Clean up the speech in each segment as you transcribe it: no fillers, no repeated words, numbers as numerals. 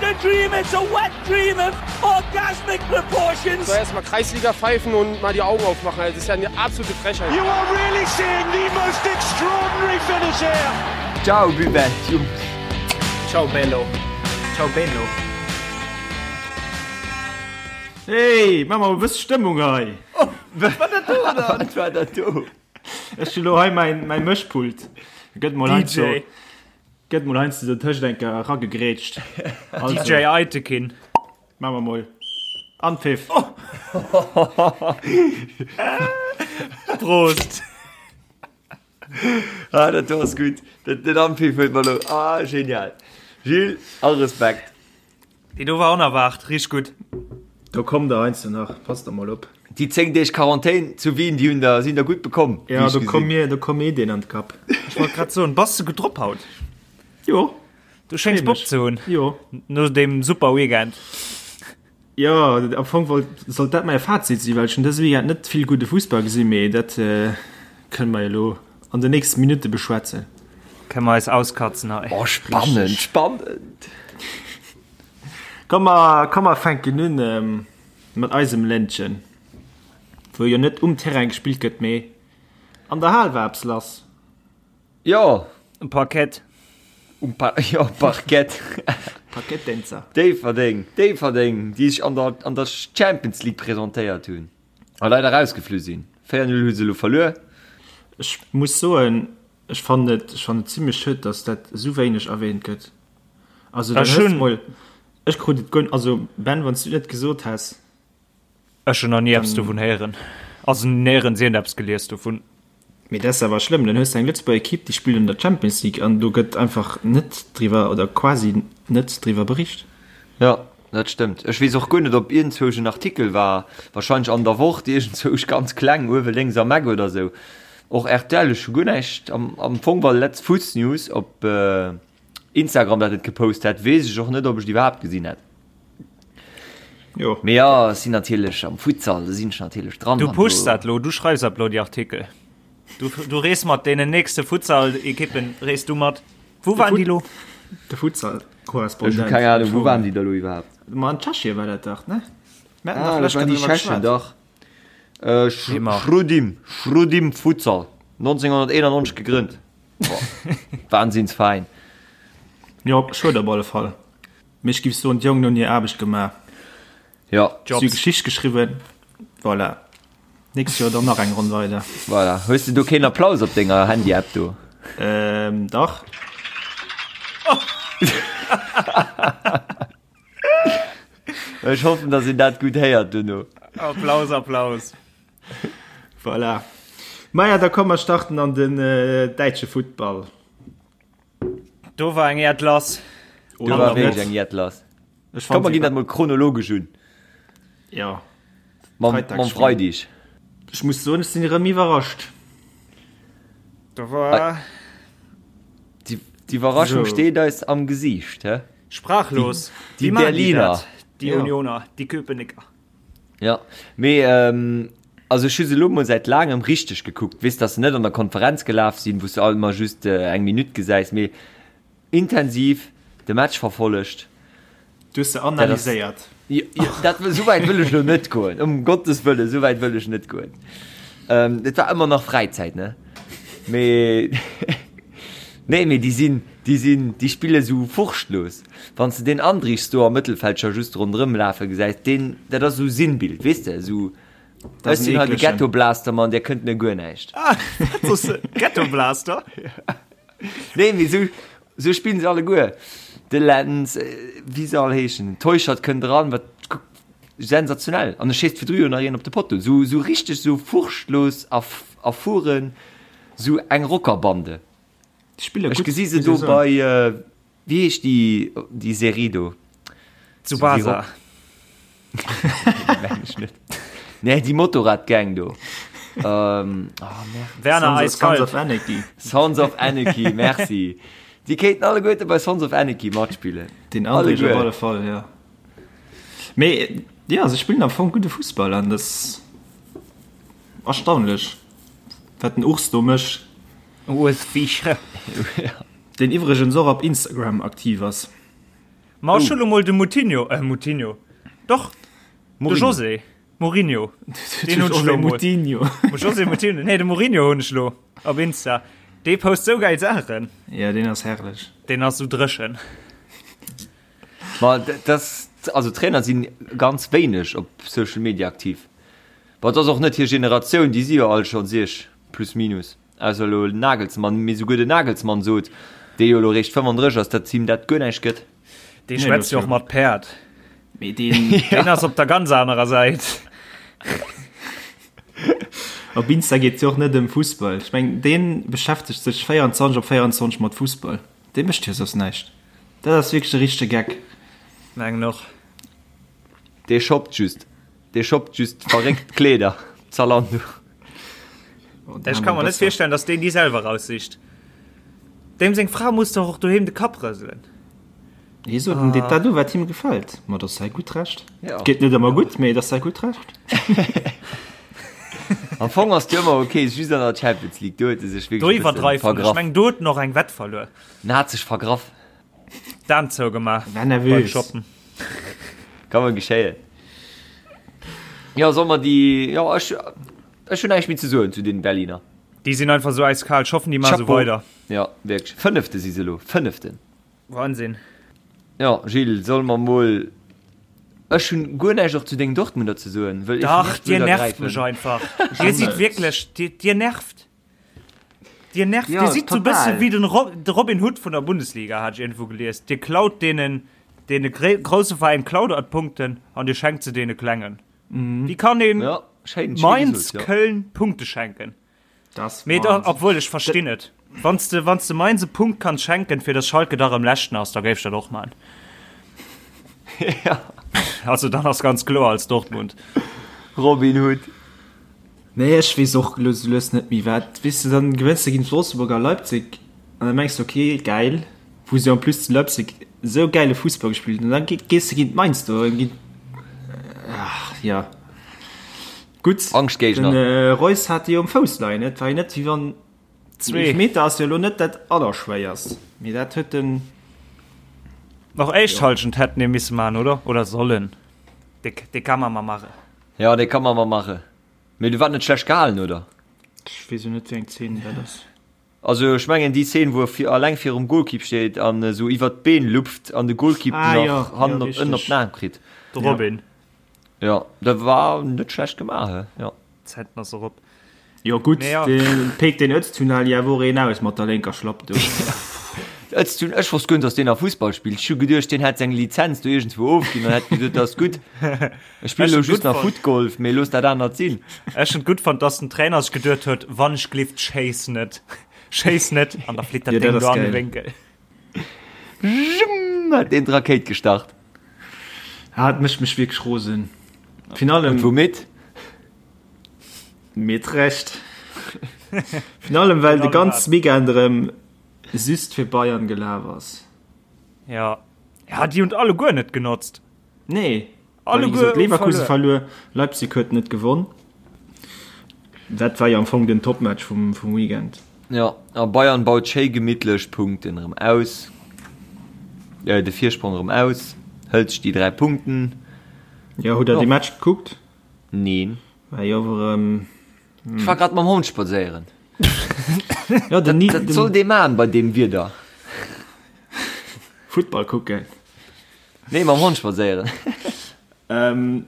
a dream, it's a wet dream of orgasmic proportions. Soll erst mal Kreisliga pfeifen und mal die Augen aufmachen, das ist ja eine absolute Frechheit. You are really seeing the most extraordinary finish here. Ciao Buvette, Jungs. Ciao bello. Ciao bello. Hey, maa mer e bësse Stëmmung hei. Wat war dat do dann? Wat war dat do? Ech hu lo hei mäin mäin Mëschpult. Gëtt mol heiansdo DJ. gëtt mol heiansdo sou tëscht eng Kéier eragegrätscht. Also, DJ Aytekin. maa mer mol. Anpfiff. Prost. Ah, dat do ass gutt. Dat, den Anpfiff huet mer lo. Ah, genial. Gilles, all Respekt. Déi do war onerwaart, richteg gutt. Do kommt der heiansdo nach, passt der mol op. Déi 10 Deeg Quarantän zu Wien, déi hunn der, sinn der gutt bekomm, wéi Ja, ech do komm gesinn. mir, do komm Ideen an d'Kapp. Ech wollt grad soen, bass de gutt drop haut? Jo. Du schéngs Bock ze hunn. Jo. No deem super Weekend. Jo, am Fong wollt, sollt dat mäi Fazit sinn, well ech hunn dëse Weekend net vill gudde Fussball gesinn, mee dat kënne mer jo elo an den nächste Minutte beschwätzen. Kënne mer eis auskatzen hei. Oh, spannend, spannend! Komm mer, komm mer fänken un mat eisem Ländchen, wou jo net um Terrain gespillt gëtt, mee an der Hal war eppes lass. Jo. Um Parkett. Um pa jo, Parkett. Parketttänzer. Déifferdeng, Déifferdeng, déi sech an der, an der Champions League presentéiert hunn a leider rausgeflu sinn. 4, 0 hu se elo verluer. Ech muss soen, ech fannen et, ech fannen et zimlech schued, dass dat esou wéineg erwähnt gëtt. Also dann Ech hues hunn. mol, ech krut et guer, also Ben, wann s du et net gesot häss. Ech hunn nach ni eppes dovun héieren. Also néierens iergendeppes gelies dovun. Mee dat ass awer schlëmm, dann hues de eng Lëtzebuerger Ekipp, déi spillt an der Champions League an do gëtt einfach net driwwer oder quasi net driwwer bericht. Jo, dat stëmmt. Ech weess och guer net, ob iergendzwousch en Artikel war, warscheinlech an der Wort, iergendzwousch ganz kleng, uewe lénks am Eck oder sou. Och rtl, ech hu guer näischt. Am Fong war Letz Fuss News op. Instagram dat et gepost hätt, weess ech och net, ob ech et iwwerhaapt gesinn hätt. Jo. Mee ja, ech sinn natierlech am Futsal, do sinn ech natierlech dran. Du an pushs do- dat lo, du schreifs ab lo déi Artikel. Du, du rees mat deenen nächste Futsal-Ekippen, rees du mat. Wou waren déi lo? De Futsal Ech hu Korrespondent. keng Ahnung, wou waren déi da lo iwwerhaapt? Ma an Tschechien war dat dach, ne? Mir haten Ah, dach dat lech waren déi driwwer Tschechen, geschwat. dach. Äh, Sch Immer. Chrudim, Chrudim Futsal, 1991 gegrënnt. Wahnsinnsveräin. Jo, schued op alle Fall. Mee ech giff soen, d'Jongen hunn hir Aarbecht gemaach. Jo. Si hu Geschicht geschriwwen. Voilà. Nächst Joer dann nach eng Ronn weider. Voilà. Hues de do keen Applaus op denger Handy-App do? Ähm, dach. Ech hoffen, dass een dat gutt héiert duerno. Applaus, Applaus. Voilà. Maja, da komm mer starten an den äh, däitsche Futtball. Do war eng Äerd lass. Do war wierklech eng Äerd lass. Ech Komm, mer fand ginn dat mol chronologesch un. Ja. Mam, Freitagsspiel. mam Freideg. Ech muss soen, ech sinn erëm iwwerrascht. Do war Déi, d'Iwwerraschung So. steet eis am Gesiicht, hä? sprachlos. Die- die Wéi machen Berliner. dat? Déi Ja. Unioner, déi Köpenicker. Ja, mee ähm, also ech hu se elo mol säit laangem richteg gekuckt. Weess, dass se net an der Konferenz gelaf sinn, wou s de alt emmer just äh, eng Minutt gesäis, mee intensiv de Match verfollegt. Du hues se analyséiert. Jo, jo, dat, esou wäit wëll ech elo net goen, ëm Gottes Wëllen, esou wäit wëll ech net goen. Ähm, et war ëmmer nach Fräizäit, ne? Mee nee, mee déi sinn, déi sinn, déi spille sou furchtlos. Wann s de deen Andrichs do am Mëttelfeld scho just ronderëm lafe gesäis, deen, dat ass esou Sinnbild, weess de, esou, Dat ech ass en sinn hei de eeklegen. Ghettoblaster-Mann, där kënnt mir guer näischt. Ah, wat soss de? Ghettoblaster? Nee, mee sou, sou spillen se alleguer. De Lenz, wéi se all heeschen, den Teuchert kënnt eran, wat sensationell. An e schéisst virdru jo nach een op de Potto. Sou, sou richteg sou furchtlos a, a fueren, sou eng Rockerbande. Déi spille Ech gutt, gesi se muss do ee soen. bei, wéi heescht déi, déi Serie do? Tsubasa. Meng ech net. Nee, déi Motorradgang do. Ähm, oh, merde. Werner Sons of, Sons Eiskalt. of Anarchy. Sons of Anarchy, merci. Déi kéinten alleguerte bei Sons of Anarchy matspillen. Den André op Alleguer. alle Fall, ja. Mee ja, se spillen am Fong gudde Fussball an das erstaunlech, wat den Urs do mécht. Urs Fischer. Deen iwwregens och op Instagram aktiv ass. Ma ech hu lo mol de Moutinho, äh Moutinho, doch, de José Mourinho. Deen hunn ech lo mol. Moutinho. José Moutinho, nee, de Mourinho hunn ech lo op Insta. Dee post sou gäil Saachen. Ja, deen ass herrlech. Deen ass sou dréchen. Ma das, also Trainer sinn ganz wéineg op Social Media aktiv. Bon, et ass och net hir Generatioun, déi si jo all schonn siech plus minus. Ausser elo Nagelsmann, mee souguer den Nagelsmann sot, dee jo elo réischt 35 ass, datt him dat guer näischt gëtt. Dee schwätzt jo och mat Päerd. Mee deen. Deen ass op der ganz anerer Säit. Op Insta geet et jo och net ëm Fussball. Ech mengen, dee beschäftegt sech 24 op 24 mat Fussball. Dee mécht jo soss näischt. Dat ass wierklech e richtege Geck. Mengen och. Dee shoppt just. Dee shoppt just verréckt Kleeder, Zalando. Ech ka mer net virstellen, dass deen déi selwer raussicht. Deem seng Fra muss dach och doheem de Kapp rëselen. Hie sot, en deet dat u wat him gefält. Ma dat ass säi gutt Recht. Et geet net ëmmer gutt, mee et ass säi gutt Recht. Am Fong ass et jo ëmmer ok, just an der Champions League, do huet e sech Do wierklech e bësse iwwerdreift en. Ech vergraff. mengen, do huet en och eng Wett verluer. En hat sech vergraff. D'Aan zougemaach War nervös. beim Shoppen. Kann mol geschéien. Jo, soll mer déi, jo, ech, ech hunn näischt méi ze soen zu den Berliner. Déi sinn einfach sou eiskal. Ech hoffen, déi maache sou Chapeau. weider. Jo, wierklech. Fënnefte si se elo. Fënneften. Wahnsinn. Jo, Gilles, solle mer mol, ech hunn guer näischt och zu dengen Dortmunder ze soen, wëll ech Dach, net dir wëll nervt ergräifen. mech einfach. Dir sidd wierklech, dir, dir nervt. Dir nervt, Ja, dir sidd sou bësse total. wéi den Ro de Robin Hood vun der Bundesliga, hat ech iergendwou gelies. Dir klaut deenen, deene gré grousse Veräin klaut der d'Punkten an dir schenkt se deene klengen. Wéi kann een Ja, schéin, schéi Mainz, gesot, ja. Köln Punkte schenken? Das Mee da, Wahnsinn. obwuel, ech verstinn et. Wann s de, wann s de Mainz e Punkt kanns schenken, fir dass Schalke da rëm Leschten ass, da géif ech dat och man. Ja. Also dann ass ganz kloer als Dortmund. Robin Hood. Nee, ech weess och elo sou lues net méi wat. Weess de, dann gewënns de géint Wolfsburg a Leipzig an da mengs de ok, gäil, wou se en plus zu Leipzig esou gäile Fussball gespillt hunn an dann gees de géint Mainz do an géint, ach jo, gutt. Angschtgéigner. Den Reus hat déi jo um Fouss leien, et war jo net wéi wann, den Eelefmeter ass jo elo net dat allerschwéierst, mee dat huet den. Nach éischt Halschent hätten ee misse man, oder? Oder sollen. Dee ka man ma mache. Jo, dee ka man ma mache. Mee du war net schlecht gehalen, oder? Ech weess jo net wéi eng Zeen dat ass. Also ech mengen déi Szene wou e vir alleng virum Golkipp steet an esou iwwert d'Been lupft an de Golkipp Ah, nach jo, hannen jo, op ënnen op richteg. den Aarm kritt. De Robin. Jo, dat war net schlecht gemaach, he? Jo. Zäiten ass erop. Jo gutt, Mee ja. de Peek den Öztunali ja wor een aus mat der lénker Schlapp do. Öztun, ech wosst guer net, dass deen nach Fussball spillt. Ech hu geduecht, deen hätt seng Lizenz do iergendswou ofginn an hätt gesot, dat ass gutt, ech spillen elo just nach Footgolf, mee looss dat anert sinn. Ech hunn et gutt fonnt, dass den Trainer sech geduet huet, wann ech glift, schéiss net, schéiss net, an da flitt dat Jo, dat Déng ass do an de geil. Wénkel. Jum, hat deen d'Rakéit gestart. Ah, et mécht mech wierklech rosen. Virun allem. Und womit? Mit Recht. Virun allem, well de ganz Weekend erëm just fir Bayern gelaf ass. Ja, ja déi hunn alleguer net genotzt. Nee, Alleguer well, wéi gesot, Leverkusen verluer. verluer, Leipzig huet net gewonn. Dat war jo am Fong den Topmatch vum, vum Weekend. Ja, a Bayern baut schéi gemittlech d'Punkten erëm aus, äh, de Virsprong erëm aus, hëlt sech déi 3 Punkten. Jo, hutt der dee Match gekuckt? Neen. War jo awer erëm. Ech war grad mam Hond spadséieren. Ja, den, Dat, dat soll dee man bei deem Wieder. Futtball kucken. Nee, mam Hond spadséieren. Ähm,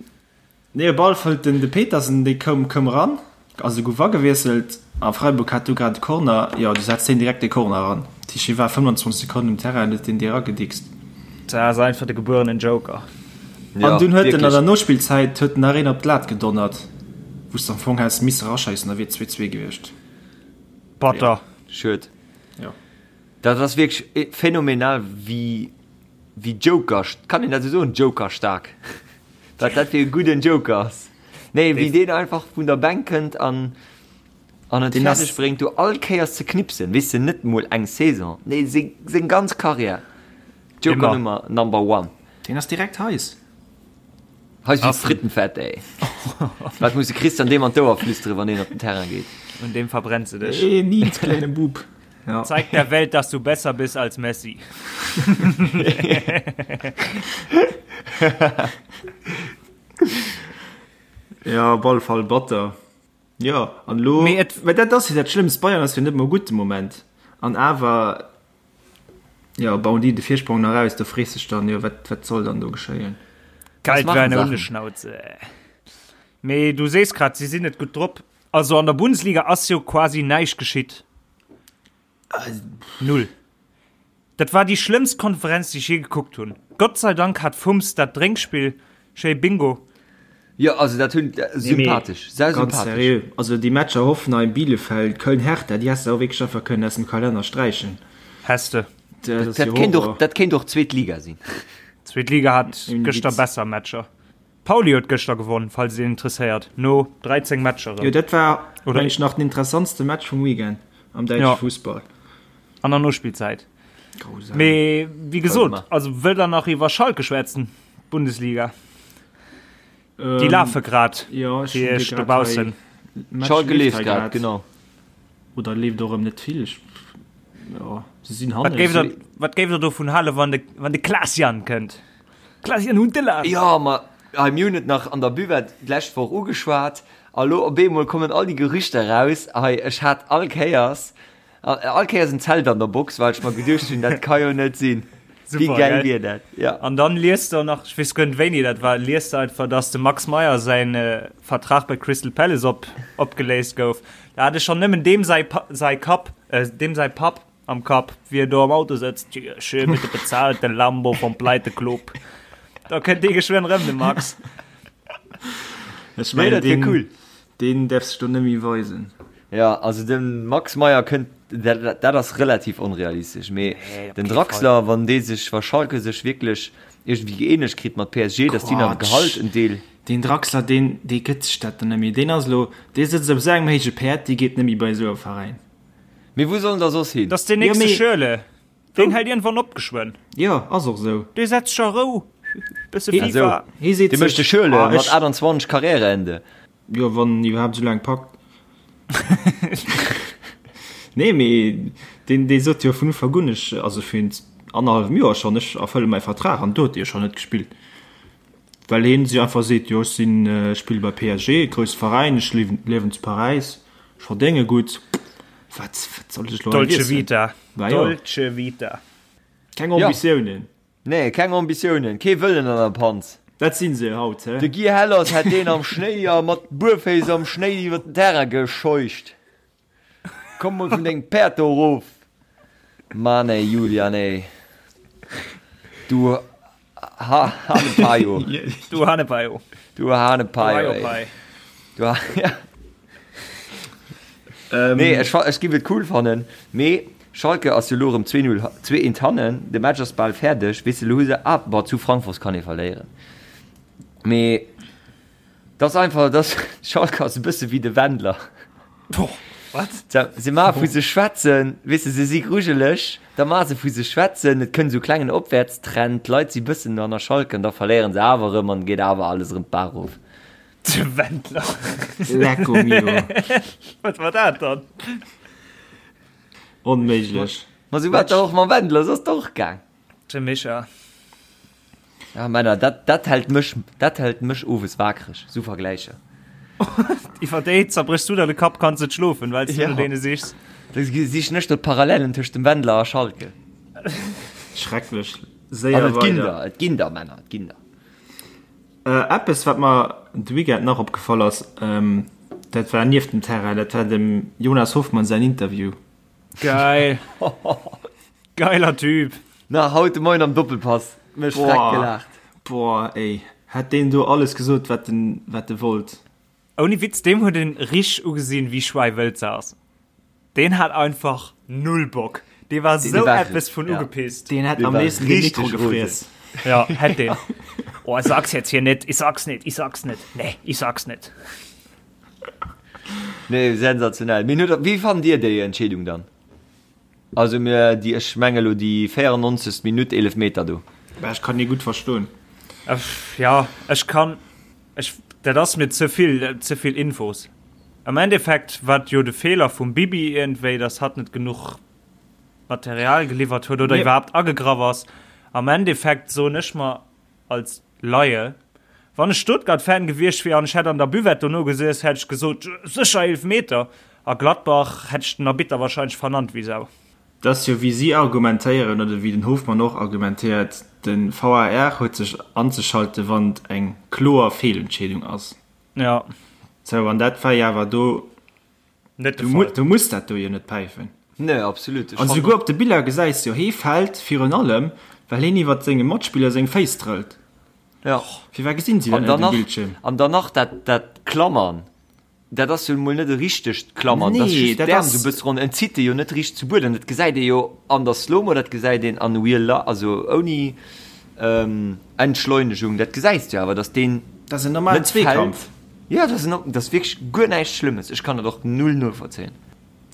nee, op alle Fall den de Petersen, dee koum, koum eran, also gouf agewiesselt a Freiburg hat du grad de Corner, jo, du setzt deen direkt de Corner eran. Dat heescht, hie war 25 Sekonnen um Terrain an huet deen déi eragedickst. Dat ass einfach de gebuerenen Joker. Ja, An dunn huet en an wierklech. der Nospillzäit huet en nach een op d'Lat gedonnert, wou s de am Fong häss misse eraschéissen, da wier et 2, 2 gewiescht. Batter. Schued. Jo. Dat ass wierklech phänomenal, wéi, wéi Joker, kann een dat esou soen, Joker-staark, wat dat fir e gudden Joker ass. Nee, wéi deen einfach vun der Bänk kënnt an, an et Deen ass- fäerdeg bréngt, do all Kéiers ze knipsen, weess de, net mol eng Saison, nee, seng, seng ganz Karriär. Joker Immer. Nummer, number one. Deen ass direkt heiß. Heiß wéi Frittenfett, ey. Wat muss de Christian deem an d'Ouer flüsteren, wann deen op den Terrain geet? Un deem verbrenns de dech. Ee Nils, kleine Bub. Ja. Zeig der Welt, dass du besser bist als Messi. Ja, op alle Fall batter. Jo, an elo, Mee et- mä dat ass jo dat Schlëmmst, Bayern ass jo net mol gutt de Moment an awer, jo, bauen déi de Virsprong nach aus, do frees dech dann, jo, wat, wat soll dann do geschéien? Kalt machen wéi eine Sachen. Hundeschnauze. Mee du sees grad, si sinn net gutt drop. Also an der Bundesliga ass jo quasi näischt geschitt. Null. Dat war déi schlëmmst Konferenz, déi ech je gekuckt hunn. Gott sei Dank hat Fums dat Drénkspill schéi Bingo. Jo, also dat hunn sympathesch, sehr Ganz sympathesch. seriö, also déi Matcher Hoffenheim, Bielefeld, Köln, Hertha, déi häss de och wierklech einfach kënnen aus dem Kalenner sträichen. Häss de. Dat ass Dat jo kéint och, Horror. dat kéint och zweet Liga sinn. Zweet Liga hat Ouni gëschter Witz. besser Matcher. Pauli huet gëschter gewonn, falls et een interesséiert, no 13 Matcher Jo, erëm. dat war, Oder- meng ech, nach den interessantste Match vum Weekend am däitsche Ja. Fussball. An der Nospillzäit. Grausam. Mee wéi gesot, Warte also wëllt der nach iwwer Schalke schwätzen? Bundesliga. Déi Ähm, lafe grad Jo, ech fir hunn iech grad dobaussen. hei- Match Schalke leeft leeft hei grad, grad. genau. Oder leeft och erëm net vill. Ech, jo, se sinn Wat hannen. géif der, wat géif der dovun halen, wann de, wann de Klaas-Jan kënnt? Klaas-Jan Huntelaar! Jo, ma hei, mir hunn et nach an der Buvette d'lescht Woch ugeschwat a lo op eemol kommen all déi Gerüchter raus. Hei, ech hat all Kéiers, all Kéiers en Zelt an der Box, well ech mer geduecht hunn, dat ka jo net sinn. Wéi Super, gäil gell? wier dat? Ja. An dann liest der nach, ech weess guer net wéini dat war, liest der einfach, dass dem Max Meyer säin Vertrag bei Crystal Palace op, opgeléist gouf. Da hat ech schonn nëmmen deem säi, säi Kapp, deem säi Papp am Kapp, wéi en do am Auto sëtzt, Tja, schön mit de bezahlte Lambo vom Pleiteclub. Da kënnt dee geschwënn rëm, de Max. Ech Nee, mengen, dat wier deen, cool. deen däerf sech do net méi weisen. Ja, also de Max Meyer kënnt, dat, dat ass relativ onrealistesch, mee Nee, op den kee Draxler, wann dee sech, wa Schalke sech wierklech iergendwéi gëeenegt kritt mat PSG, datt déi nach Quatsch. Gehalt en Deel. Deen Draxler, deen, dee gëtt sech dat dann net méi. Deen ass elo, dee sëtzt op esou engem héije Päerd, dee geet net méi bei esou e Veräin. Mee wou soll en da soss hin? Dat ass deen Jo, nächste mee- Schürrle. Deen hält iergendwann op geschwënn. Jo, ass och esou. Dee setzt sech a Rou, bësse Hee- FIFA. Hee seet Dee mécht de sech, Schürrle ah, mat ech, 28 Karriereende. jo, wann en iwwerhaapt esou laang packt. Nee, mee deen, dee sot jo vun Ufank un, ech, also virun annerhallwem Joer schonn, ech erfëlle mäi Vertrag an do huet e jo schonn net gespillt. Well heen sech einfach seet, jo ech sinn, ech spille bei PSG, grousse Veräin, ech liewen zu Paräis, ech verdénge gutt, wat, wat soll ech elo hei Dolce wiesselen? Vita. Bah jo. Dolce Vita. Keng Ambitiounen. Nee, keng Ambitiounen, kee Wëllen an der Panz. Dat sinn se haut, he? De Guy Hellers hätt deen am Schnéi a mat Buerféiss am Schnéi iwwer den Terrain gescheucht. Komm mol vun dengem Päerd do erof. Mann ey, Julian ey. Du Ha Hanepaio. Du Hanepaio. Du Hanepaio ey. Du ha ja. Ähm, Nee, ech, ech giff et cool fannen, mee Schalke ass jo lo rëm 2-0, 2-1 hannen, de Match ass bal fäerdeg, weess de, lo hu se, ah, bon, zu Frankfurt kann ee verléieren, mee dat ass einfach, dat Schalke ass e bësse wéi de Wendler. Wat? Se maache vu sech schwätzen, weess de, se si grujeleg, da maache se vu sech schwätzen, et kënnt esou klengen Opwäertstrend, d'Leit si bëssen no hanner Schalke an da verléieren se awer erëm an geet awer alles erëm d'Baach erof. De Wendler. Lecco mio. Wat war dat dann? Onméiglech. Ma sou war et och mam Wendler, sou ass et och gaang. De Micha. Ja Männer, dat, dat hält mech, dat hält mech owes wakereg, sou Vergläicher. Iwwer déi zerbréchs du der de Kapp, kanns net schlofen, well s du Ja. no deene sichs. Da sichen ech do d'Parallelen tëscht dem Wendler a Schalke. Schrecklech. An Séier et ginn weider. der, et ginn der, Männer, et ginn der. Eppes wat mer de Weekend nach opgefall ass, dat war nieft dem Terrain, dat war dem Jonas Hoffmann säin Interview. Geil. Geiler Typ. Na, haut de Moien am Doppelpass mech freck gelaacht. Boah ey, hätt deen do alles gesot wat en wat e wollt. Ouni Witz, deem huet een richteg ugesinn wéi schweiwëld se ass. Deen hat einfach null Bock. Dee war sou eppes vun ugepisst. Deen hätt am léifsten de Mikro gefriess. Ja, hätt deen. Oh, ich sag's jetzt hier net, ich sag's net, ich sag's net, nee, ich sag's net. Nee, sensationell. Mee huet, wéi fannt Dir déi Entscheedung dann? Also mir déi, ech menge lo déi 94. Minutt Eelefmeter do. Bah, ech kann dee gutt verstoen. Ja, ech kann, ech, dat ass mir ze vill, ze vill Infos. Am Endeffekt war et jo de Feeler vum Bibi iergendwéi, dass hatt net genuch. Material geliwwert huet oder iwwerhaapt agegraff ass. Am Endeffekt soen ech mer als Laie, wann ech Stuttgart-Fan gewiescht wier an ech hätt an der Buvette dono gesiess, hätt ech gesot, sécher Eelefmeter. A Gladbach hätt ech den Arbitter wahrscheinlech vernannt wéi Sau. Dat ass jo wéi si argumentéieren oder wéi den Hofmann och argumentéiert, de VAR huet sech anzeschalten, wann et eng kloer Feelentscheedung ass. Ja. Sou, an dat war jo awer do net de Fall. Du muss dat do jo net päifen. Nee, absolut. An souguer op de Biller gesäis jo, hee fält virun allem, well heen iwwert senge Matspiller seng Féiss trëllt. Ja. Firwat gesinn si dat net um Bildschierm? An dann nach dat, dat Klammern. Dat ass jo mol net e richtegt Klammern, dat ass just d'Äerm esou e bësse ronn. En zitt e jo net richteg zu Buedem. Dat gesäit ee jo an der Slow-Mo, dat gesäit een an Real Life, also ouni Entschleunegung. Dat gesäis de jo awer, datt deen Dat ass en normalen net fält. Zweekampf. Jo, dat ass en, dat ass wierklech guer näischt Schlëmmes. Ech kann dat och null novollzéien.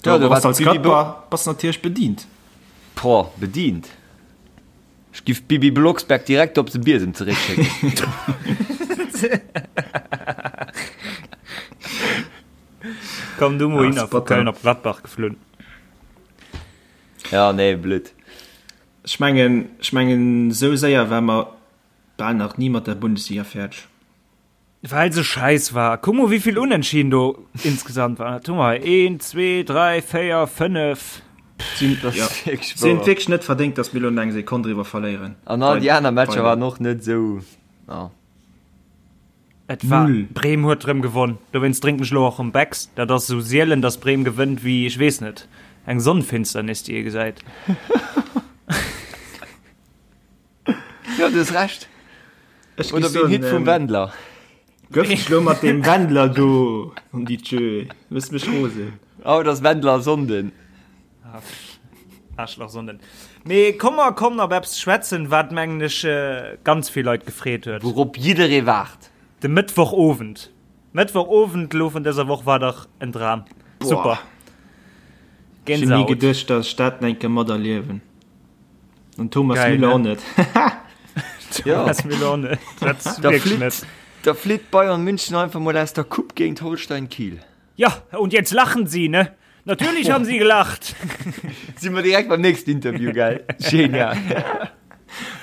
Jo, do bass als Gladbach bass natierlech bedient. Boah, bedient. Ech giff d'Bibi Blocksberg direkt op de Biesem zeréckschécken. Komm du mol hinner vu Köln op Gladbach geflunn. Ja, nee, blöd. Ech mengen, ech mengen, esou séier war mer bal nach ni mat der Bundesliga fäerdeg. Well se scheiss war. Kuck mol wéivill Unentschieden do insgesamt waren. Dat hu mer hei 1, 2, 3, 4, 5. Si hunn et wierklech net verdéngt, datt mir elo eng Sekonn driwwer verléieren. An all déi aner Matcher waren och net esou. Et war Bremen huet rëm gewonn. Dowéinst drénken ech elo och rëm Becks. Dat ass esou sielen, datt Bremen gewënnt wéi, ech weess net, eng Sonnenfinsternis, déi ee gesäit. Jo, du hues Recht. Ech Oder wéi en Hit vum Wendler. Gëff dech lo mat deem Wendler do an déi Tjö. Mëss mech rosen. Haut ass Wendler Sonnden. Aarschlach Sonnden. Mee komm mer kommen op eppes schwätzen, wat mengen ech ganz vill Leit gefreet huet. Wourop jidderee waart. De Mëttwochowend. Mëttwochowend elo vun dëser Woch war dach en Dram. Super. Ech hunn ni geduecht, datt ech dat eng Kéier materliewen. An Thomas Geil, Müller ne? och net. Thomas Müller och net. Dat Da wirklich flitt, net. da flitt Bayern München einfach mal aus der Coupe géint Holstein Kiel. Ja, und jetzt lachen sie, ne? Natürlich haben sie gelacht. Si mer direkt beim nächsten Interview, gell? Genial.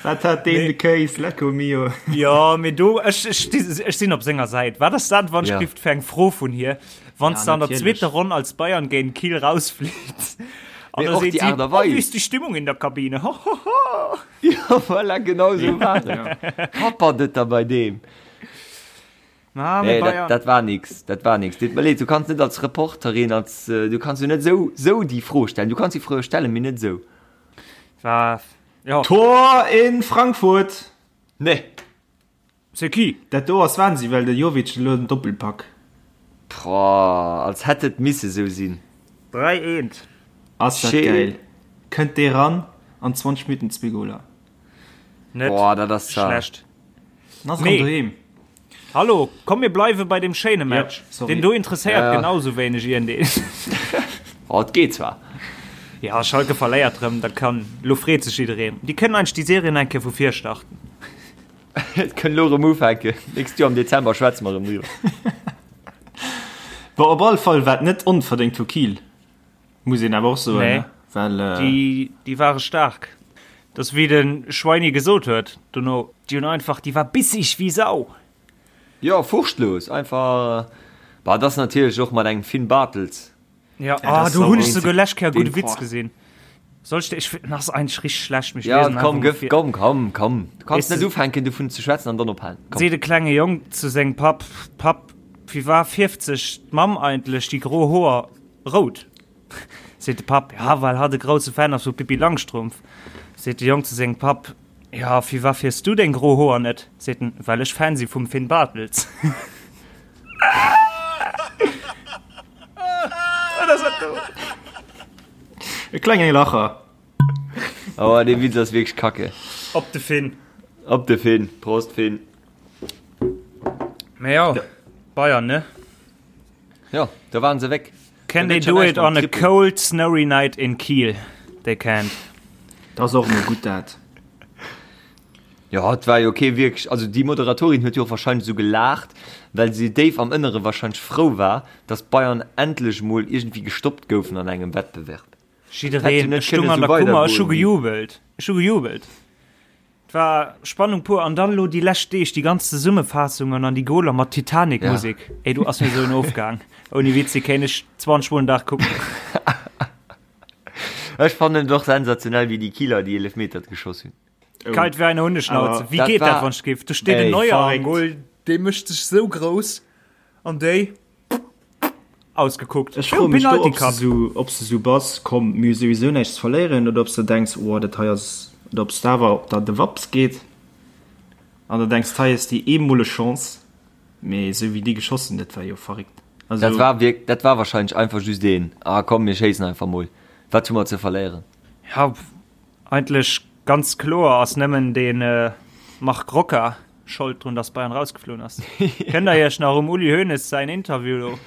Wat hat deen de Kéis? Lecco mio. Ja, mee do, ech, ech, ech sinn op senger Säit. Wat ass dat, wann Ja. ech gift fir eng Fro vun hir, wann Ja, du an der natierlech. zweeter Ronn als Bayern géint Kiel rausflitt? An Mee da och seet déi si, Aart a oh, wie Weis. ist die Stimmung in der Kabine? Ho, ho, ho. Ja, voilà, genau sou war et. Happert et da bei deem. Ah, mee Nee, dat, Bayern. dat war nix, dat war nix. Deet mer leed, du kanns net als Reporterin, als, äh, du kanns jo net sou, sou déi Fro stellen. Du kanns déi Fro stellen, mee net sou. War, ja. Tor in Frankfurt! Nee. C'est qui? Dat do ass Wahnsinn, well de Jovic elo den Doppelpack. Boah, als hätt et misse sou sinn. 3 eent. Ass dat Schéin. geil. Kënnt dee ran an 20 Minutten zwee Goler. Net Boah, dat ass zart. schlecht. An ass erëm Nee. doheem. Hallo, komm mir bleiwe bei dem schéine Match. Ja, sorry. Den do interesséiert Ja, ja. genau sou wéineg iergendeen. Oh, et geet zwar. Ja, Schalke verléiert rëm, da kann, lo freet sech jiddereen. Déi kënnen eigentlech déi Serien eng Kéier vu vir starten. Et kënn lo erëm ufänken. Nächst Joer am Dezember schwätze mer erëm driwwer. Bon, op alle Fall war et net onverdéngt vu Kiel, muss een awer och soen, Nee. ne? Well, äh, Déi, déi ware staark. Dat ass wéi de Schweini gesot huet dono, déi hunn einfach, déi war bissig wéi Sau. Jo, furchtlos, einfach. Bah, dat ass natierlech och mat engem Finn Bartels. Ja, dat ah, ass do hunn ech sauer. souguer lescht Kéier e gudde Den- Witz gesinn. Soll ech dir, ech, den ass eigentlech richteg schlecht, mee ech Ja, liesen komm, einfach mol gëff, vir. komm, komm, komm. Du kanns Weess net de- ufänken dovun ze schwätzen an dann ophalen. Komm. Seet e klenge Jong zu sengem Papp, Papp, wéi war fierft sech d'Mamm eigentlech déi gro Hoer rout? Seet de Papp, Ja, well hatt e grousse Fan ass vu Pippi Langstrumpf. Seet de Jong zu sengem Papp, Ja, firwat fierfs du deng gro Hoer net? Seet en, Well ech Fan si vum Finn Bartels. Wat ass dat do? E klenge Lacher. Oh, dee Witz ass wierklech kacke. Op de Finn. Op de Finn. Prost, Finn. Mee jo, Bayern, ne? Jo, da waren se weg. Can they do it on a cold snowy night in Kiel? They can't. Dat ass och emol gutt dat. Jo, et war jo kee wierklech, also déi Moderatorin huet jo och wahrscheinlech esou gelaacht, well se déif am Ënnere wahrscheinlech frou war, datt d'Bayern endlech mol iergendwéi gestoppt goufen an engem Wettbewerb. Jiddereen, ech stung an der Kummer, ech hu gejubelt, ech hu gejubelt. Et war Spannung pur an dann elo déi lescht Deeg déi ganz Zesummefaassungen an déi Goler mat Titanic-Musek. Ja. Ey, du ass mir sou en Ofgang. Ouni Witz, déi kéint ech 20 Mol den Dag kucken. Ech fannen et och sensationell, wéi déi Kieler déi Eelefmeter geschoss hunn. Oh. Kalt wéi eine Hundeschnauze. Wéi geet dat, wann ech géif? Do steet en Neuer am Goal, dee mécht sech sou grouss an déi. Ausgekuckt. Ech froe mech do, ob s du ob s du sou bass, komm, mir hu souwisou näischt ze verléieren, oder ob s de denks, oh, dat hei ass, oder ob s de awer, ob der de Waps geet an der denks, hei ass déi eemoleg Chance. Mee esou wéi déi geschoss hunn, dat war jo verréckt. Also. Dat war wierk, dat war wahrscheinlech einfach just een, ah komm, mir schéissen einfach mol, wat hu mer ze verléieren? Ja, eigentlech ganz kloer ass nëmmen de Marc Roca Schold drun, dass Bayern rausgefloen ass. Kënnt der iech nach um Uli Hoeneß säin Interview do?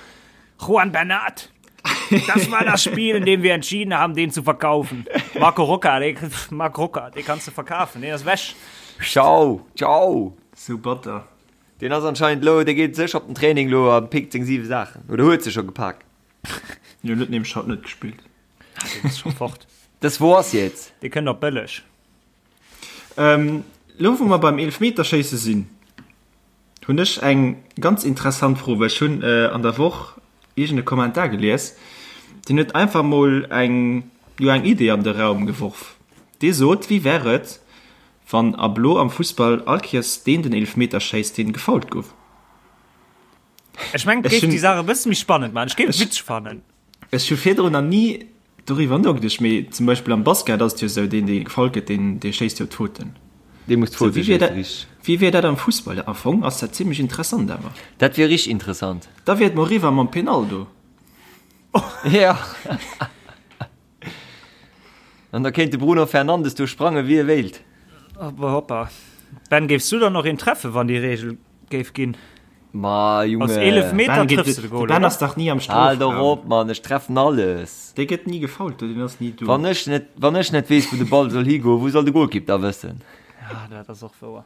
Juan Bernat, das war das Spiel, in dem wir entschieden haben, den zu verkaufen. Marco Roca, den, Marc Roca, den kannst du verkaufen, den ass weg. Ciao, ciao. Sou batter. Deen ass anscheinend lo, dee geet sécher op den Training lo a pickt seng 7 Saachen. Oder huet se scho gepak. Jo, huet nämlech haut net gespillt. Ah, deen ass scho fort. Das war's jetzt. Dee kënnt op bëlleg. Ähm, lo wou mer beim Eelefmeterschéisse sinn, hunn ech eng ganz interessant Fro, well ech hunn an der Woch iergend e Kommentar gelies, deen huet einfach mol eng, jo eng Idee an de Raum geworf. Dee sot, Wéi wär et, wann ab lo am Fussball all Kéiers deen den Eelefmeter schéisst, deen gefoult gouf? Ech mengen, et géif déi Saach e bësse méi spannend maachen. Ech géif et witzeg fannen. Ech hu virdrun nach ni doriwwer nogeduecht, mee zum Beispill am Basket ass et jo esou, deen, dee gefoult gëtt, deen, dee schéisst jo d'Fauten. Dee muss d'Faute schéissen, richteg. Wéi wier dat am Fussball? Am Fong ass dat zimmlech interessant awer. Dat wier richteg interessant. Da wier et mol eriwwer mam Penaldo. Jo. An da kéint de Bruno Fernandes do sprange wéi e wéilt. Hoppa hoppa. Ben, géifs du dann och een treffen, wann déi Reegel géif ginn? Ma Junge. Aus 11 Meter Ben, trëffs du de Goal, de Ben oder? ass dach ni am Hal doch Strofraum. op, Mann, ech treffen alles. Dee gëtt ni gefoult, deen ass ni do. Wann ech net, wann ech net weess, wou de Ball soll higoen, wou soll de Golkipp da wëssen? Ja, dat ass och wouer.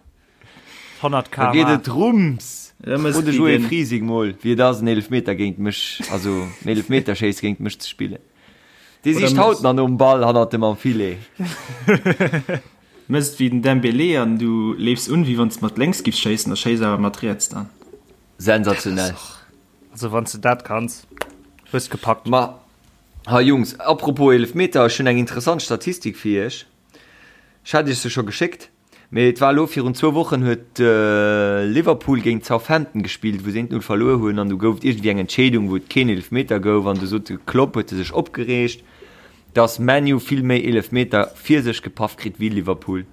100 Da geet km/h. et rums. Da mëss Fro de wéi Joé den. Frising mol, wéi et ass, en Eelefmeter géint mech, also en Eelefmeterschéiss géint mech ze spillen. Dee Oder sicht haut mëss. nach nom Ball hannert dem am Filet. Mëss wéi den Dembélé an du leefs un, wéi wann s de mat lénks giffs schéissen a schéiss awer mat riets dann. Sensationell. Also wann s de dat kanns, hues gepackt. Ma hei Jungs, apropos Eelefmeter, ech hunn eng interessant Statistik fir iech. Ech hat iech se scho geschéckt. Mee et war elo virun zwou Wochen huet Liverpool géint Southampton gespillt, wou se 1, 0 verluer hunn an du gouf et iergendwéi eng Entscheedung, wou et keen Eelefmeter gouf an du sot de Klopp, huet e sech opgereegt, datt ManU vill méi Eelefmeter fir sech gepaff kritt wéi Liverpool.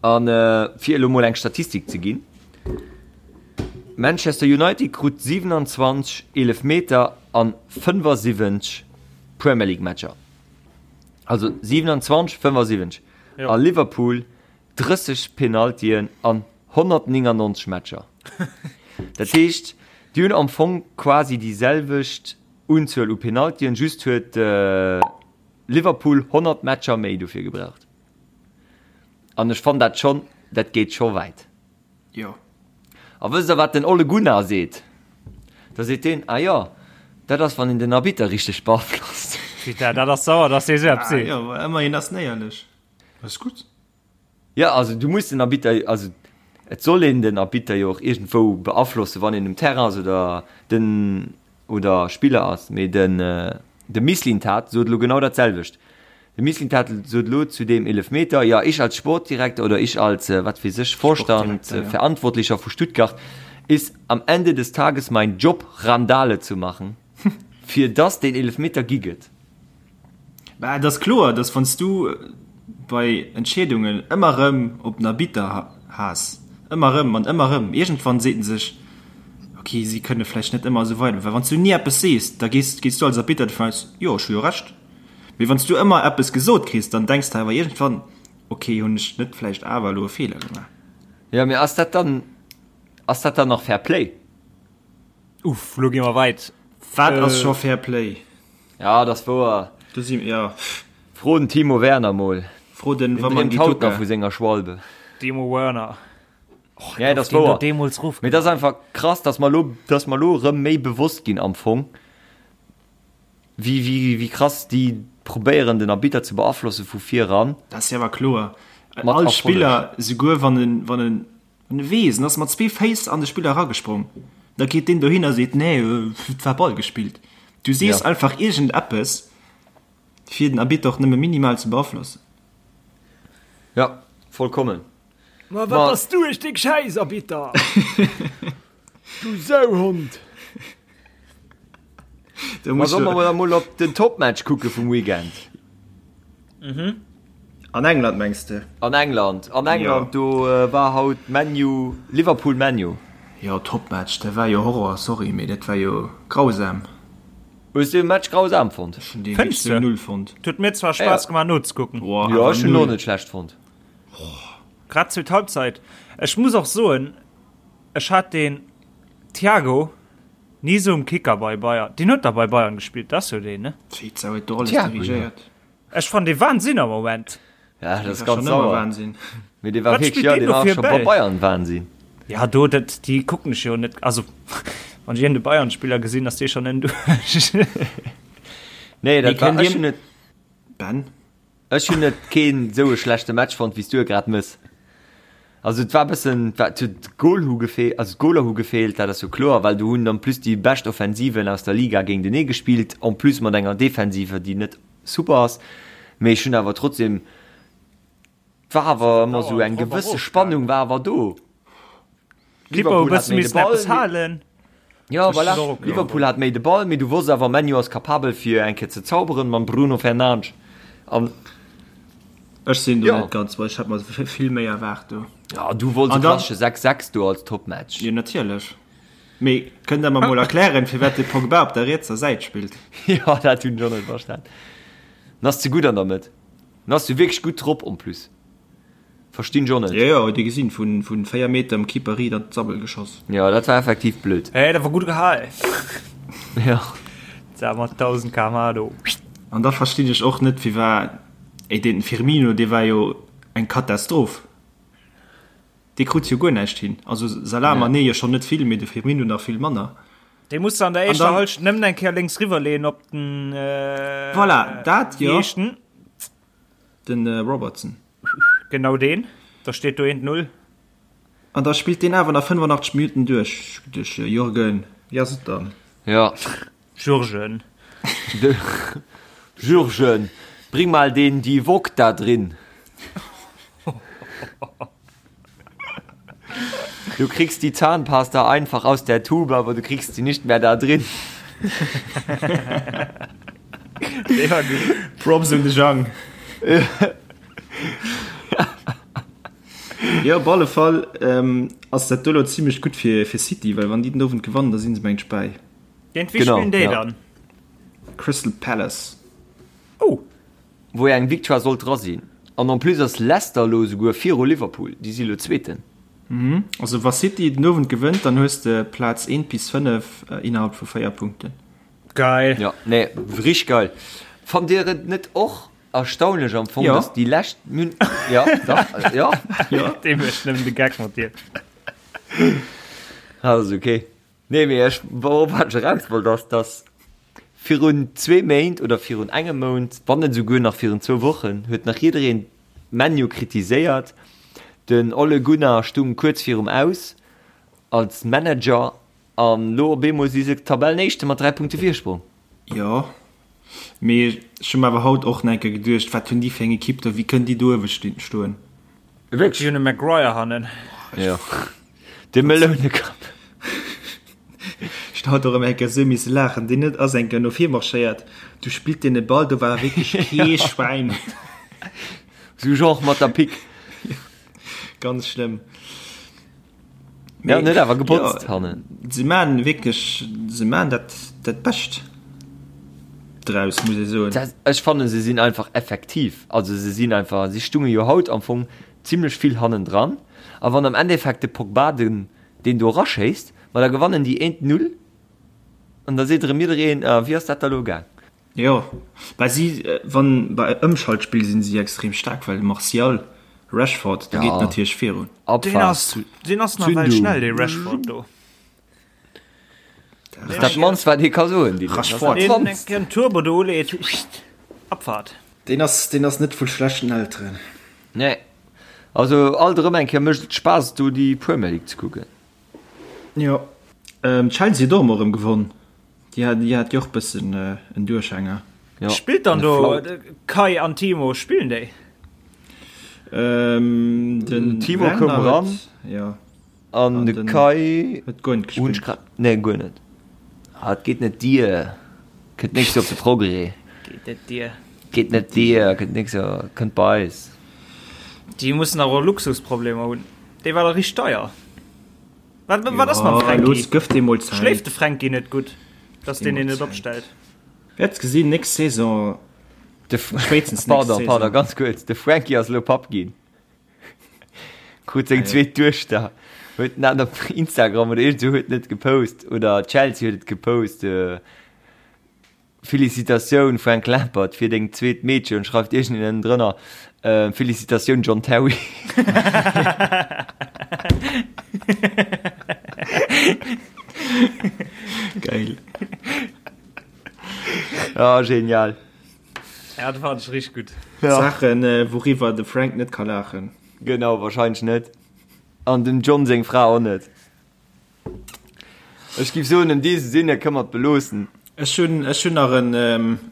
An fir elo mol eng Statistik ze ginn, Manchester United krut 27 Eelefmeter an 75 Premier League Matcher, also 27, 75. A Liverpool 30 Penaltyen an 199 Matcher. Dat heescht, déi hunn am Fong quasi déi selwecht Unzuel u Penaltyen, just huet Liverpool 100 Matcher méi dofir gebraucht. An ech fannen dat schonn, dat geet scho wäit. Jo. A wësst der wat den Ole Gunnar seet? Da seet deen, ah jo, dat ass wann een den Arbitter richteg beaflosst. Putain, dat ass sauer, dass dee sou eppes seet. Ah jo, ëmmerhin ass en éierlech. Dat ass gutt. Jo, also du muss den Arbitter, also et soll een den Arbitter jo och iergendwou beaflossen, wann een um Terrain ass oder den oder Spiller ass. Mee den de Mislintat sot elo genau dat selwecht. De Mislintat sot elo zu deem Eelefmeter, ja, ich als Sportdirektor oder ich als, wat weess ech, Vorstand, Sportdirektor, ja. Verantwortlicher vu Stuttgart, ist am Ende des Tages mein Job, Randale zu machen, fir dass deen Eelefmeter gi gëtt. Mä et ass kloer, dass wann s du bei Entscheedungen ëmmer erëm op den Arbitter haas, ëmmer erëm an ëmmer erëm, iergendwann seet en sech, ok, si kënne vläicht net ëmmer esou weider. Well wann s du ni eppes sees, da gees, gees du als Arbitter dovun aus, jo, ech hu jo Recht. Mee wann s du ëmmer eppes gesot kriss, dann denks de awer iergendwann, ok, hunn ech net vläicht awer elo e Feeler gemaach? Jo, mee ass dat dann, ass dat dann nach Fair Play? Uff, lo gi mer weit. Wat ass scho Fair Play? Ja, dat ass wouer. Do si, ja. Fro den Timo Werner mol. Fro den Deen dreemt haut nach vu senger Schwalbe. Timo Werner. Och, ja, dat ass wouer. Deemools ruff. Mee dat ass einfach krass, dass mer lo, dass mer lo erëm méi bewosst ginn am Fong. Wéi, wéi, wéi krass déi probéieren den Arbitter ze beaflosse vu vir eran. Dat ass jo awer kloer. Mat All Spiller, souguer wann en, wann en, wann e weess, en ass mat zwee Féiss an de Spiller eragesprongen, da geet deen dohin a seet, nee, et war Ball gespillt. Du sees ja. einfach iergendeppes, fir den Arbitter och nëmme minimal ze beaflossen. Ja, vollkommen. Ma wat bass du e Stéck Schäiss, Arbitter! Du Sauhond! Ma solle mer emol op den Topmatch kucke vum Weekend? Mhm. An England mengs de? An England, an England do war haut ManU, Liverpool ManU. Jo, Topmatch, dat war jo Horror, sorry, mee dat war jo grausam. Hues du de Match grausam fonnt? Ech hunn dee wierklech sou null fonnt. Huet mir zwar Spaass gemaach nozekucken. Jo, ech hunn en och net schlecht fonnt. Grad zweet Halbzeit. Ech muss och soen, ech hat den Thiago ni sou um Kicker bei Bayern. Deen huet da bei Bayern gespillt, dat ass jo deen, ne? Wéi d'Sau huet do alles dirigéiert. Ech fannen dee Wahnsinn am Moment. Ja, dat ass War ganz schon ëmmer sauer. Wahnsinn. Mee dee war Wat wierklech, spillt ja, deen dee do war fir e scho bei Bäll? Bayern Wahnsinn. Ja, do, dat, déi kucken ech jo net. Also, wann ech iergend e Bayern-Spiller gesinn, ass dee schonn en duerch. Nee, Mee dat war, kënnt ech dir. hunn et, Ben? Ech hunn et keen esou e schlechte Match fonnt wéi s du e grad mëss. Also et war bëssen, et war, et huet d'Goal hu gefeelt, also d'Goaler hu gefeelt, dat ass jo kloer, well do hunn en plus déi bescht Offensiven aus der Liga géintenee gespillt, en plus mat enger Defensive déi net super ass. Mee ech hunn awer trotzdem, et war awer ëmmer esou eng gewësse Spannung war awer do. Liverpool hat méi de Ball. Ja, voilà. Liverpool hat méi de Ball, mee du wosst awer, ManU ass kapabel fir eng Kéier ze zauberen mam Bruno Fernandes. An Ech sinn do ja. net ganz, well ech hat mer vill méi erwaart do. Ja, du wollts e klassesche 6-6 do als Topmatch. Jo, natierlech. Mee kënnt der mer mol erklären, firwat de Pogba op der rietser Säit spillt? Ja, dat hunn ech och net verstan. En ass ze gutt an der Mëtt. En ass jo wierklech gutt drop en plus. Verstinn ech och net. Jo jo, huet ee gesinn, vun 4 Meter dem Keeper riit an d'Sabbel geschoss. Jo, dat war effektiv blöd. Hey, dat war gutt gehal. Jo. Dat mat 1000 kmh do. An da verstinn ech och net firwar, ey den Firmino dee war jo eng Katastroph, dee krut jo guer näischt hin, also Salah, Mané jo schonn net vill, mee de Firmino nach vill manner. Dee muss de an der éischter Halschent nëmmen eng Kéier lénks riwwer leeën op den Voilà, dat jo. Den Robertson. Genau deen. Da steet do eent Null. An da spillt deen awer nach 85 Minutten duerch. Duerch Jürgen. Wéi ass et dann? Ja. Jürgen. De Jürgen, bring mal den Divock da drin. Du kriegst die Zahnpasta einfach aus der Tube, aber du kriegst sie nicht mehr da drin. Props un de Jang. Jo, op alle Fall ähm, ass dat do lo zimmlech gutt fir, fir City, well wann déi den Owend gewannen, da sinn se mengt bäi. Géint wie spillen déi dann? Crystal Palace. Oh! Wou eng Victoire sollt dra sinn. An en plus ass Leicester elo esouguer viru Liverpool, déi si elo Zweeten. Also wa City den Owend gewënnt, dann hues de Plaz 1 bis 5 innerhalb vu 4 Punkten. Geil! Jo, nee, richteg geil. Fannt dir et net och erstaunlech am Fong, dass déi lescht, jo, dach, jo. Dee mécht nëmmen de Geck mat dir. Ass ok. Nee, mee ech, wourop wat ech eraus wollt, ass, dass virun zwee Méint oder virun engem Mount, wann net esouguer nach virun zwou Wochen, huet nach jiddereen ManU kritiséiert. Den Ole Gunnar stung kuerz virum Aus als Manager an lo op eemol si se Tabellenéischte mat 3 Punkte Virsprong. Jo, mee ech hu mer awer haut och nach eng Kéier geduecht, wat hunn déi fir eng Ekipp do, wéi kënnen déi do uewe stoen? Wierklech? Déi hunn e Maguire hannen. Jo. De Melounekapp. Ech hat och ëmmer eng Kéier esou misse laachen. Deen huet ass eng Kéier no vir marschéiert, du spillt deen e Ball, do war wierklech kee Schwäin. Sou genre mat der Pick. Ganz schlëmm. Ja, en huet awer gebotzt hannen. Se maan wierklech, se maan dat dat Bescht draus, muss ee soen. Ech fannen, se sinn einfach effektiv. Also se sinn einfach, si stunge jo haut am Fong zimlech vill hannendran a wann am Endeffekt de Pogba den deen do eraschéisst, ma da gewannen déi eent Null an da seet erëm jiddereen, ah wéi ass dat da lo gaang? Jo, well si wann bei Ëmschaltspill sinn si extrem staark, well Martial, Rashford, do geet natierlech virun. Deen ass deen ass nawell schnell dee Rashford do. Dat ass dat mannst wat ee ka soen, Dylan. Dat ass dat mannst. Deen Turbo do uleet, Abfahrt. Deen ass, deen ass net vu schlechten Elteren. Nee. Also alt erëm eng Kéier mécht et Spaass do déi Premier League ze kucken. Jo. Chelsea huet och emol erëm gewonn. Déi hat, déi hat jo och bëssen en Duerchhänger. Jo. Spillt dann do Kai an Timo, spillen déi? Den Timo koum eran. Jo. An de Kai huet guer net gespillt. Nee, guer net. Ah, et geet net dier. Kënnt nächst Joer op de Progrès. Geet net dier. Geet net dier, kënnt nächst Joer, kënnt bei eis. Déi mussen awer och Luxusproblemer hunn. Dee war da richteg deier. Wat, wat ass mam Fränki? Los, gëff deem mol Zäit. Schléift de Fränki net gutt, dass deen een net opstellt? Wäerts gesinn, nächst Saison, De spéitstens nächst Pardon, Saison. pardon, ganz kuerz. De Franky ass elo Papp ginn. Krut seng zweet Duechter. Huet en dat op Instagram oder iergend esou huet en et gepost oder Chelsea huet et gepost. Felicitatioun Frank Lampard fir deng zweet Meedchen, schreift iergendeen ënnendrënner. Felicitatioun John Terry. Geil. Ah, genial. Ja, dat fand ech richteg gutt. Ja. Saachen, wouriwwer de Frank net ka laachen. Genau, wahrscheinlech net. An dem John seng Fra och net. Ech giff soen, an diesem Sinne kënne mer et beloossen. Ech hunn, ech hunn nach en,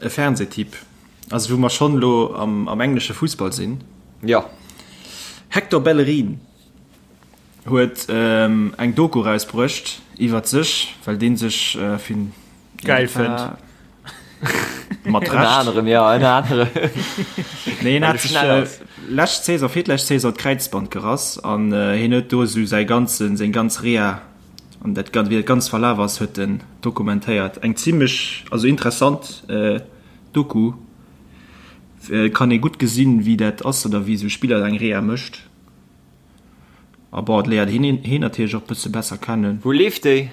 e Fernsehtipp, also wou mer schonn elo am, am englesche Fussball sinn. Jo. Hector Bellerin huet eng Doku erausbruecht iwwert sech, well dee sech fir Geil fënnt. Mat Ënner Recht. anerem, jo, ënner anerem. Nee, hien Well hat e sech schnell ass. lescht Saison, virlescht Saison d'Kräizband gerass an hien huet do esou säi ganzen, seng ganz Reha an dat gan, wéi dat ganz verlaf ass, huet en dokumentéiert. Eng zimmlech, also interessant Doku. Kann ee gutt gesinn, wéi dat ass oder wéi esou e Spiller eng Reha mécht. A bon, et léiert hien hien natierlech och bësse besser kennen. Wou leeft déi?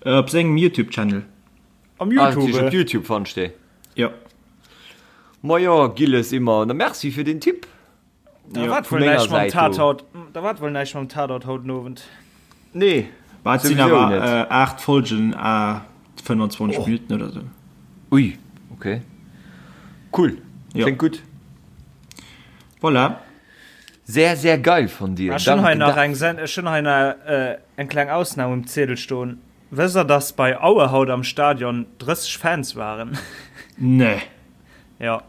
Op sengem Youtube Channel. Am Ah, Youtube? op Youtube fannst de. Jo. Ma jo, Gilles, immer. Na merci fir den Tipp. Da wat Vu wuel menger näischt mam Säit do. Tatort, da wat wuel näischt mam Tatort haut den Owend. Nee, Bah, et sinn souwisou awer net. äh, 8 Folgen à 25 Minuten oder sou. Ui, okay. Cool. Jo. Kléngt gutt. Voilà. Sehr, sehr geil von dir. Ech hunn hei Danke nach da. eng Sen ech hunn hei nach äh, eng kleng Ausnam um Ziedel stoen. Wësst der, dass bei Aue haut am Stadion 30 Fans waren? Nee. Jo,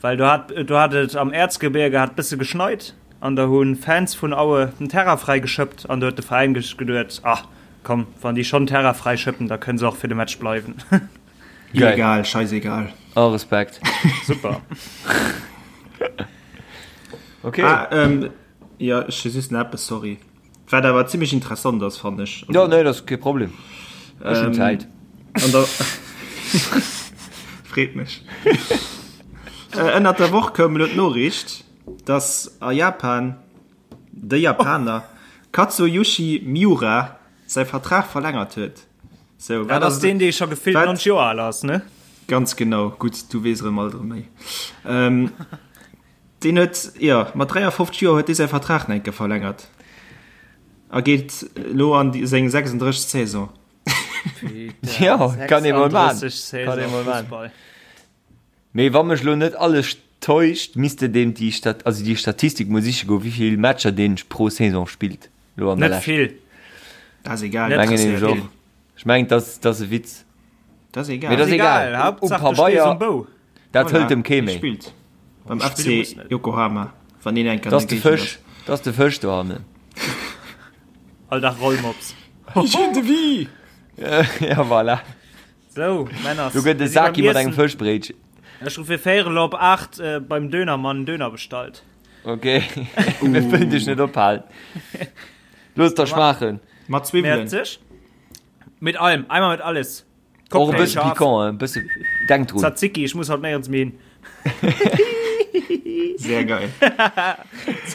well do hat do hat et am Erzgebirge hat bësse geschneit an da hu Fans vun Aue den Terrain fräi geschëppt an do huet de Veräin geduet, ah komm, wann déi schonn Terrain fräi schëppen, da kënne se och fir de Match bleiwen. Geil. Egal, scheißegal. Oh, Respekt. Super. Okay. Ah, ähm, ja, ech hu just nach eppes, sorry. Wat awer zimmlech interessant ass, fannen ech. Ja, nee, dat ass kee Problem. Ech hunn Zäit. An der Freet mech. Ënnert der Woch koum elo d'Noriicht, dass a Japan de Japaner Katsuyushi Miura säi Vertrag verlängert huet. Sou, Dat ass deen, dee scho gefillt 90 Joer al ass, ne? Ganz genau. Gutt, du weess erëm alt erëm méi. Deen huet, jo, mat 53 Joer huet dee säi Vertrag nach eng Kéier verlängert a geet elo an seng 36. Saison. Jo, kann ee mol man. Kann ee mol man. Mee wa mech elo net alles täuscht, misst de deem déi Stat, also déi Statistik mol siche goen, wéi vill Matcher deen pro Saison spillt elo an der Net Lescht. vill. Dat ass egal. Net Mengen nämlech och. Ech mengen, dat ass e Witz. Dat ass egal. Mee dat ass egal. Hauptsaach, Um du stees Pabeier, um Bou. dat hëlt em kee Hie méi. spillt beim Spille FC muss net. Yokohama, wann een enk an Dat ass der de Géigend Fësch, dat ass de Fësch dohannen. All Dag Rollmops. Ja, voilà. Sou, Männers. Do gëtt e mir si beim Saki mat engem Iessen. Fëschbréitchen. Ech hu fir véierel op 8 beim Dönermann en Döner bestallt. Ok, mir wëllen dech net ophalen. Looss der schmaachen. ass. Mat Zwiwwelen. Mäerzeg. Mit allem, einmal mit alles. Och e bësse scharf. piquant, e bësse, denk drun. Tzatziki, ich muss haut néierens méi hin. Sehr geil.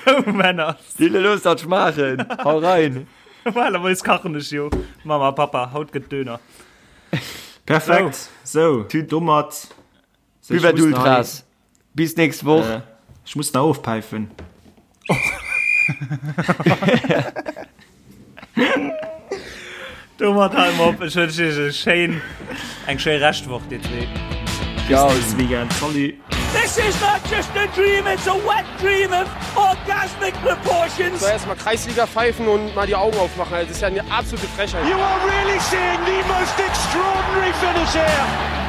Sou, Männer. Dille, looss dat schmaachen. Hau rein. Normalerweis kachen ech jo. Mama, Papa, haut gëtt Döner. Perfekt. Sou, domat. Buvette Ultras. Bis nächst Woch. Äh, ech muss nach ofpäifen. Domat hale mer op. Ech wënschen iech e schéin, eng schéi Reschtwoch, dir zwee. Ciao. Bis nächste Weekend. Salut. This is not just a dream, it's a wet dream of orgasmic proportions. So, erstmal Kreisliga pfeifen und mal die Augen aufmachen. Das ist ja eine absolute Frechheit. You are really seeing the most extraordinary finish here.